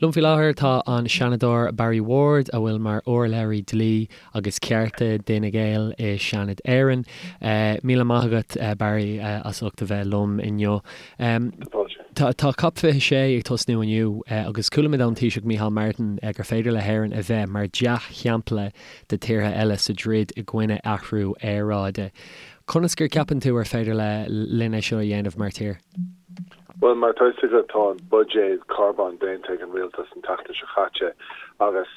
Liom faoi láthair tá an Seanadóir Barry Ward, a bhfuil mar urlabhraí dlí agus cearta d'Fhine Gael i Seanad Éireann. Míle maith agat, Barry, as ucht a bheith liom inniu. Tá tá Cop 26 ag tosnú inniu agus chuala muid ón Taoiseach Micheál Martin gur féidir le hÉirinn a bheith mar dea-shampla do tíortha eile sa dtroid i gcoinne athrú aeráide. Conas gur ceapann tú ar féidir le linn é seo a dhéanamh mar tír? Bhuel, mar atá fhios agat, tá an buidéad carbóin déanta ag an rialtas an tseachtain seo chaite agus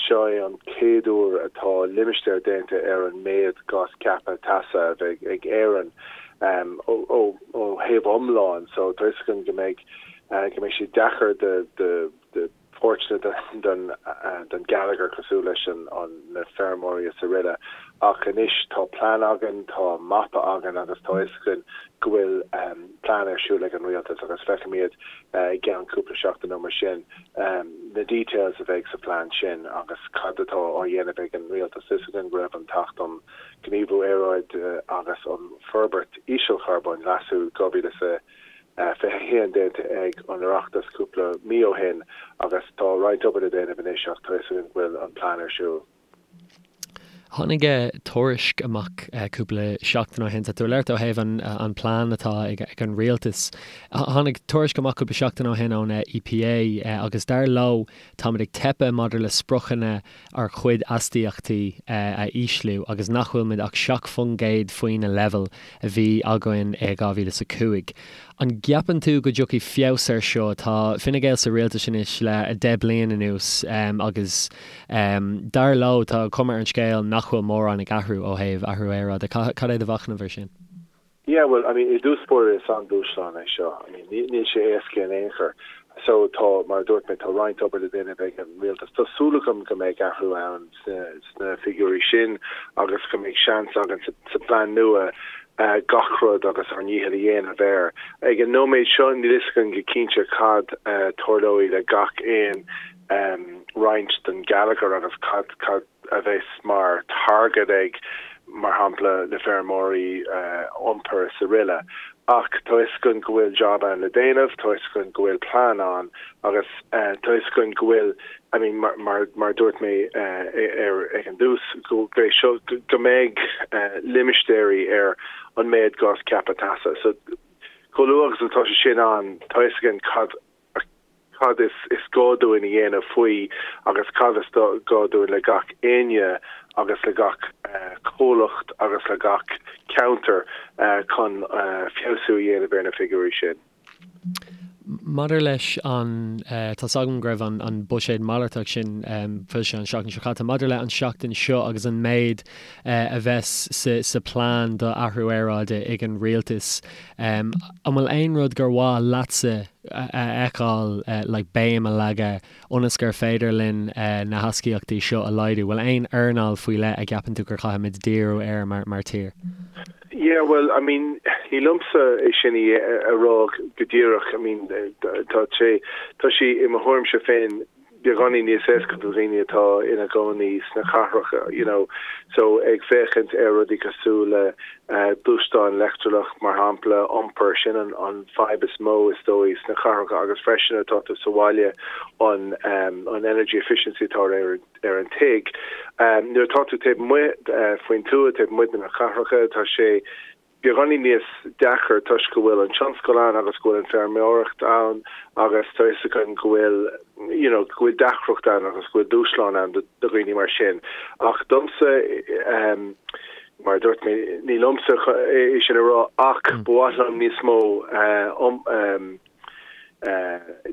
seo é an chéad uair atá limistéar déanta ar an méad gás ceaptha teasa a bheidh ag Éirinn ó thaobh iomlán. So tá fhios againn go mbeidh go mbeidh sé deacair do do pháirteanna den gheilleagar cosúil leis na feirmeoirí is aroile. Ach anois tá plean againn, tá mapa againn agus tá fhios againn go bhfuil plean ar siúl ag an rialtas agus feicfimid i gceann cúpla seachtain nó mar sin na details a bheidh sa phlean sin agus cad atá á dhéanamh ag an rialtas. Tá fhios againn go raibh an tAcht um Ghníomhú Aeráide agus um Forbairt Ísealcharbóin, Leasú, 2000 21 déanta ag an Oireachtas cúpla mí ó shin agus tá roinnt obair le déanamh anois ach tá fhios againn go bhfuil an plean ar siúl. Tháinig tuairisc amach cúpla seachtain ó shin, tá tú ag labhairt ó thaobh an plean atá ag an rialtas. Tháinig tuairisc amach cúpla seachtain ó shin ón EPA agus dar leo táimid ag teipeadh maidir le spriocanna ár gcuid astaíochtaí a ísliú agus nach bhfuil muid ach 7% faoi na leibhéil a bhí againn i 2005. An gceapann tú go dtiocfaidh feabhas air seo? Tá Fine Gael sa rialtas anois le 10 bliain anuas agus dar leo tá cuma ar an scéal nach bhfuil mórán ag athrú ó thaobh athrú aeráide. Cad é do mhachnamh ar sin? Yeah, well, I mean, i dtús báire is an-dúshlán é seo. I mean, níl sé éasca in aon chor. So tá, mar a dúirt mé, tá roinnt obair le déanamh ag an rialtas. Tá súil agam go mbeidh athrú ann sna figiúirí sin agus go mbeidh seans againn sa plean nua gach rud agus ár ndícheall a dhéanamh air. Ag an nóiméad seo níl fhios againn go cinnte cad tarlóidh le gach aon roinnt den gheilleagar agus cad, cad, a bheas mar target ag, mar shampla, na feirmeoirí, iompar is aroile. Ach tá fhios againn go bhfuil job ann le déanamh, tá fhios againn go bhfuil plean ann agus tá fhios againn go bhfuil, I mean, mar, mar, mar a dúirt mé ar, ag an dtús, go mbeidh seo, go mbeidh limistéirí ar an méad gás ceaptha teasa. So, chomh luath agus atá sé sin ann, tá fhios againn cad cad is is gá dúinn a dhéanamh faoi agus cad is gá dúinn le gach éinne agus le gach comhlacht agus le gach ceantar chun feabhsú a dhéanamh ar na figiúirí sin. Maidir leis an, tá's agam go raibh an buiséad malartach sin foilsithe an seachtain seo caite, maidir le an seachtain seo agus an méid a bheas sa plean do athrú aeráide ag an rialtas, an bhfuil aon rud gur mhaith leatsa a fheiceáil like béim a leagadh ionas gur féidir linn na hastaíochtaí seo a laghdú? Bhfuil aon earnáil faoi leith a gceapann tú gur chaithfimid díriú air mar mar tír? Yeah, well, I mean, ní liomsa é sin a rá go díreach. I mean, tá sé, tá sé i mo thuairimse féin beagáinín níos éasca do dhaoine atá ina gcónaí sna cathracha, you know, so ag féachaint ar rudaí cosúil le gluaisteáin leictreach, mar shampla, iompar, sin an an fadhb is mó is dóigh sna cathracha agus freisin atá tú sa bhaile an an energy efficiency atá ar ar an tigh. Nuair atá tú taobh amuigh faoin tuath, taobh amuigh de na cathracha, tá sé beagáinín níos deacair toisc go bhfuil an tionscal ann agus go bhfuil an feirmeoireacht ann agus tá fhios againn go bhfuil you know go bhfuil deacracht ann agus go bhfuil dúshlán ann do dhaoine mar sin. Ach domsa ehm mar a dúirt mé ní liomsa é sin a rá ach ba mhaith liom níos mó eh um ehm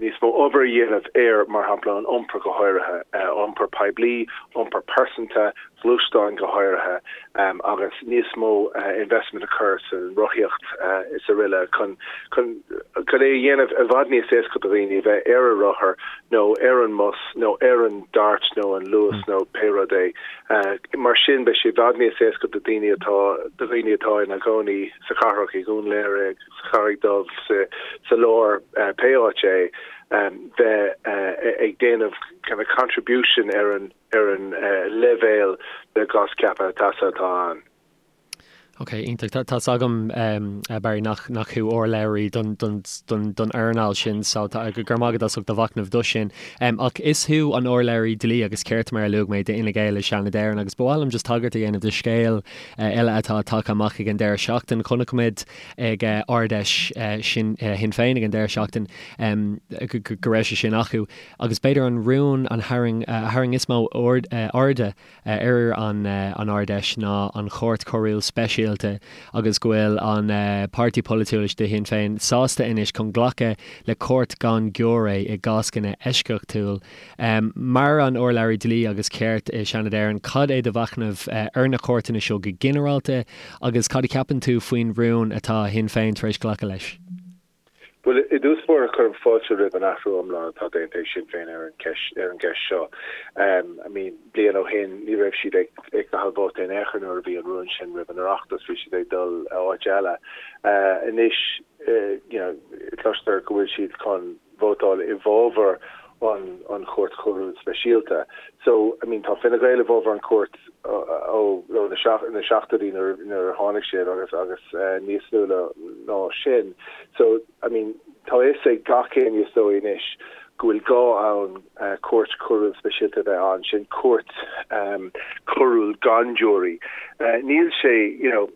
níos mó obair a dhéanamh ar, mar shampla, an iompar go háirithe, iompar poiblí, iompar pearsanta, gluaisteáin go háirithe, agus níos mó investment a chur san rothaíocht is aroile chun chun chun é a dhéanamh i bhfad níos éasca do dhaoine a bheith ar a rothar nó ar an mbus nó ar an DART nó an Luas nó pé rud é. Mar sin beidh sé i bhfad níos éasca do daoine atá do dhaoine atá ina gcónaí sa chathrach, i nDún Laoghaire, sa Charraig Dhubh, sa lár, pé áit é, bheith ag déanamh kind of contribution ar an ar an leibhéal de gás ceaptha teasa atá ann. Ok, iontach. Tá's agam, Barry, nach nach thú urlabhraí don don don don earnáil sin, so tá go raibh maith agat as ucht do mhachnamh do sin. Ach is thú an urlabhraí dlí agus cirt, mar a luaigh mé, d'Fhine Gael i Seanad Éireann agus ba mhaith liom just tagairt a dhéanamh do scéal eile atá tagtha amach ag an deireadh seachtain. Chonaic muid ag Ard-Fheis sin Shinn Féin ag an deireadh seachtain go raibh sé sin acu agus b'fhéidir an rún an tharraing a tharraing is mó airde ar an Ard-Fheis ná an Chúirt Choiriúil Speisialta agus go bhfuil an páirtí polaitiúil de Shinn Féin sásta anois chun glacadh le cúirt gan giúiré i gcáscanna eisceachtúil. Mar an urlabhraí dlí agus cirt i Seanad Éireann, cad é do mhachnamh ar na cúirteanna seo go ginearálta agus cad a cheapann tú faoin rún atá Shinn Féin tar éis glacadh leis? Bhuel, i dtús báire, cuirim fáilte roimh an athrú iomlán atá déanta ag Sinn Féin ar an gceist ar an gceist seo. I mean, bliain ó shin, ní raibh siad ag ag caitheamh vóta in aon chor nuair a bhí an rún sin roimh an Oireachtas, bhí siad ag dul áit eile. Anois, you know, cloistear go bhfuil siad chun vótáil i bhfabhar an an Chúirt Choiriúil Speisialta. So, I mean, tá Fine Gael i bhfabhar an chúirt ó ó na na seachtóidí nuair nuair a tháinig siad agus agus níos luaithe ná sin. So, I mean, tá a fhios ag gach éinne is dóigh anois go bhfuil gá ann cúirt choiriúil speisialta a bheith ann, sin cúirt choiriúil gan giúirí. Níl sé, you know,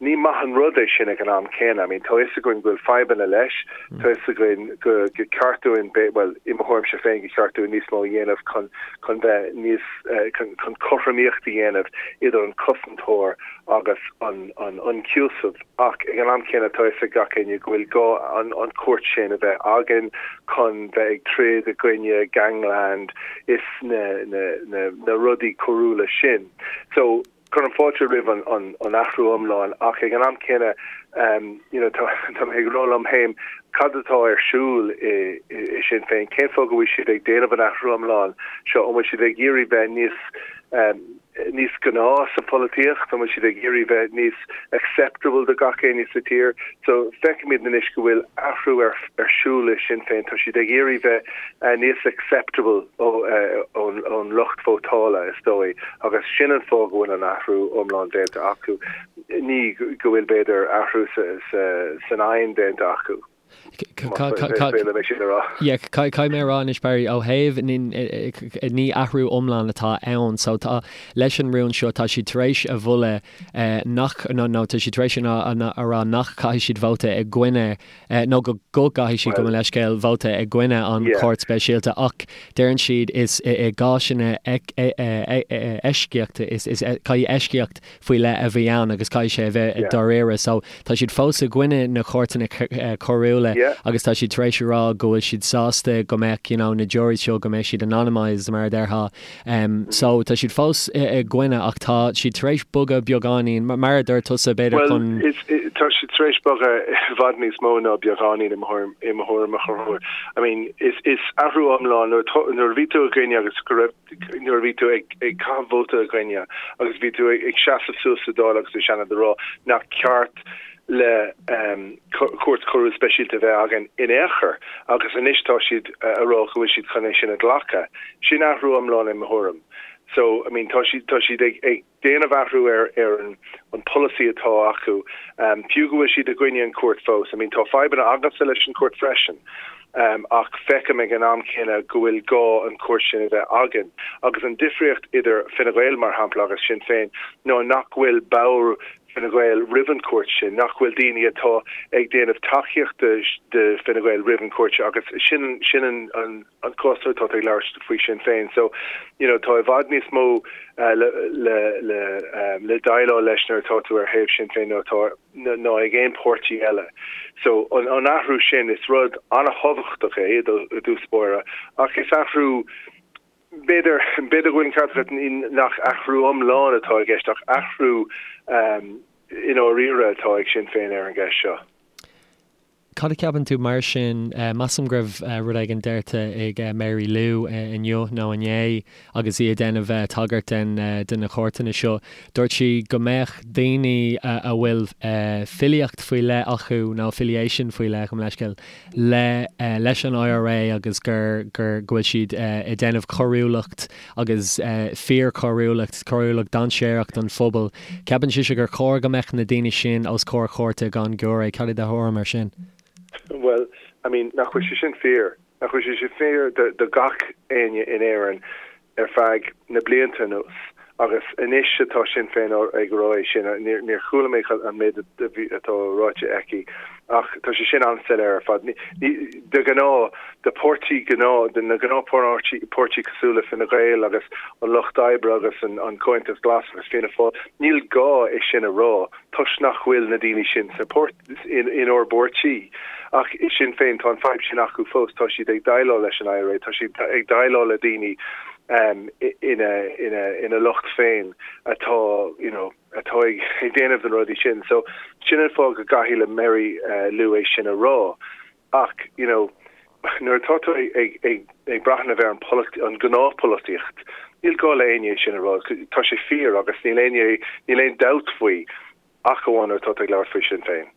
Ní maith an rud é sin ag an am céanna. I mean, tá a fhios againn go bhfuil fadhbanna leis, tá a fhios againn go go ceart dúinn, bhuel, i mo thuairimse féin, go ceart dúinn níos mó a dhéanamh chun chun bheith níos, chun chun cothromaíocht a dhéanamh idir an cosantóir agus an an ionchúiseamh. Ach ag an am céanna tá a fhios ag gach éinne go bhfuil gá an an chúirt sin a bheith againn chun bheith ag troid i gcoinne gangland is na na na na rudaí coiriúla sin. So, Cuirim fáilte roimh an athrú iomlán ach ag an am céanna you know tá tá mé ag rá liom féin cad atá ar siúl i i Sinn Féin? Cén fáth go bhfuil siad ag déanamh an athrú iomlán seo? An bhfuil siad ag iarraidh bheith níos níos gnáth sa pholaitíocht? An bhfuil siad ag iarraidh bheith níos acceptable do gach éinne sa tír? So feicimid anois go bhfuil athrú ar ar siúl i Sinn Féin. Tá siad ag iarraidh bheith níos acceptable ón ón lucht vótála is dóigh agus sin an fáth go bhfuil an athrú iomlán déanta acu. Ní go bhfuil b'fhéidir athrú sa sa san aidhm déanta acu. Caithfidh mé a rá anois Barry, ó thaobh ní athrú iomlán atá ann so tá leis an rún seo tá siad tar éis a mholadh nach nó nó tá siad tar éis a rá nach caithfidh siad vóta i gcoinne nó go go gcaithfidh siad gabh mo leithscéal vóta i gcoinne an chúirt speisialta ach deireann siad is i gcásanna eisceachta is is caithfidh eisceacht faoi leith a bheith ann agus caithfidh sé a bheith dáiríre. So tá siad fós i gcoinne na cúirteanna coiriúla agus tá siad tar éis a rá go bhfuil siad sásta go mbeadh you know na juries seo go mbeadh siad anonymised mar a déarfá. So tá siad fós i gcoinne ach tá siad tar éis bogadh beagáinín mar a dúirt tusa b'fhéidir chun. Bhuel tá siad tar éis bogadh i bhfad níos mó ná beagáinín i mo thuairim i mo thuairim a Chonchúir. I mean is is athrú iomlán nuair nuair a bhí tú i gcoinne agus go raibh nuair a bhí tú ag caitheamh vóta i gcoinne agus bhí tú ag seasamh suas sa Dáil agus sa Seanad a rá nach ceart le cúirt choiriúil speisialta a bheith againn in aon chor agus anois tá siad a rá go bhfuil siad chun é sin a ghlacadh. Sin athrú iomlán i mo thuairim. So, I mean, tá siad, tá siad ag, ag déanamh athrú ar, ar an, an polasaí atá acu, fiú go bhfuil siad i gcoinne an chúirt fós. I mean, tá fadhbanna agamsa leis an chúirt freisin. Ach feicim ag an am céanna go bhfuil gá an chúirt sin a bheith againn. Agus an difríocht idir Fine Gael, mar shampla, agus Sinn Féin ná nach bhfuil ball Fine Gael roimh an chúirt sin, nach bhfuil daoine atá ag déanamh tacaíochta do Fine Gael roimh an chúirt sin agus sin sin an an an cás nuair atá tú ag labhairt faoi Sinn Féin. So, you know, tá i bhfad níos mó le le le le déileáil leis nuair atá tú ar thaobh Sinn Féin ná atá ná ag aon páirtí eile. So an an athrú sin, is rud an-thábhachtach é i dtús báire, ach is athrú, b'fhéidir, b'fhéidir go bhfuil an ceart agat nach athrú iomlán atá i gceist ach athrú i ndáiríre atá ag Sinn Féin ar an gceist seo. Cad a cheapann tú mar sin? Measaim go raibh rud éigin deirte ag Mary Lou inniu nó inné agus í ag déanamh tagairt den de na cúirteanna seo. Dúirt sí go mbeadh daoine a bhfuil filíocht faoi leith acu nó affiliation faoi leith, gabh mo leithscéal, le leis an IRA agus gur gur go bhfuil siad ag déanamh coiriúlacht agus fíorchoiriúlacht, coiriúlacht dainséarach don phobal. Ceapann sise gur chóir go mbeadh na daoine sin os comhair chúirte gan giúiré. Cad é do thuairim ar sin? Bhuel, I mean, nach bhfuil sé sin fíor? Nach bhfuil sé sin fíor do gach éinne in Éirinn ar feadh na blianta anuas? Agus anois atá Sinn Féin ag rá é sin, níor chuala mé an méid atá ráite aici ach tá sé sin an-soiléir ar fad. De ghnáth, de páirtí gnáth, de na gnáthpháirtí páirtí cosúil le Fine Gael agus an Lucht Oibre agus an Comhaontas Glas agus Fianna Fáil, níl gá é sin a rá toisc nach bhfuil na daoine sin sa pháirt, in inár bpáirtí. Ach i Sinn Féin tá an fadhb sin acu fós, tá siad ag déileáil leis an IRA, tá siad ag déileáil le daoine ina ina ina lucht féin atá you know atá ag déanamh na rudaí sin. So sin an fáth go gcaithfidh le Mary Lou é sin a rá. Ach you know nuair atá tú ag ag ag breathnú ar an an gnáthpholaitíocht, níl gá le éinne é sin a rá, tá sé fíor agus níl éinne níl aon dabht faoi ach amháin nuair atá tú ag labhairt faoi Sinn Féin.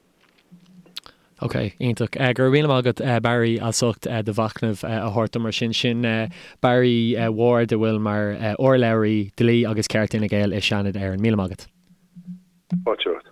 Ok, iontach. Go raibh míle maith agat Barry as ucht do mhachnamh a thabhairt dom mar sin. Sin Barry Ward a bhfuil mar urlabhraí dlí agus ceart Fhine Gael i Seanad Éireann. Míle maith agat. Fáilte romhat.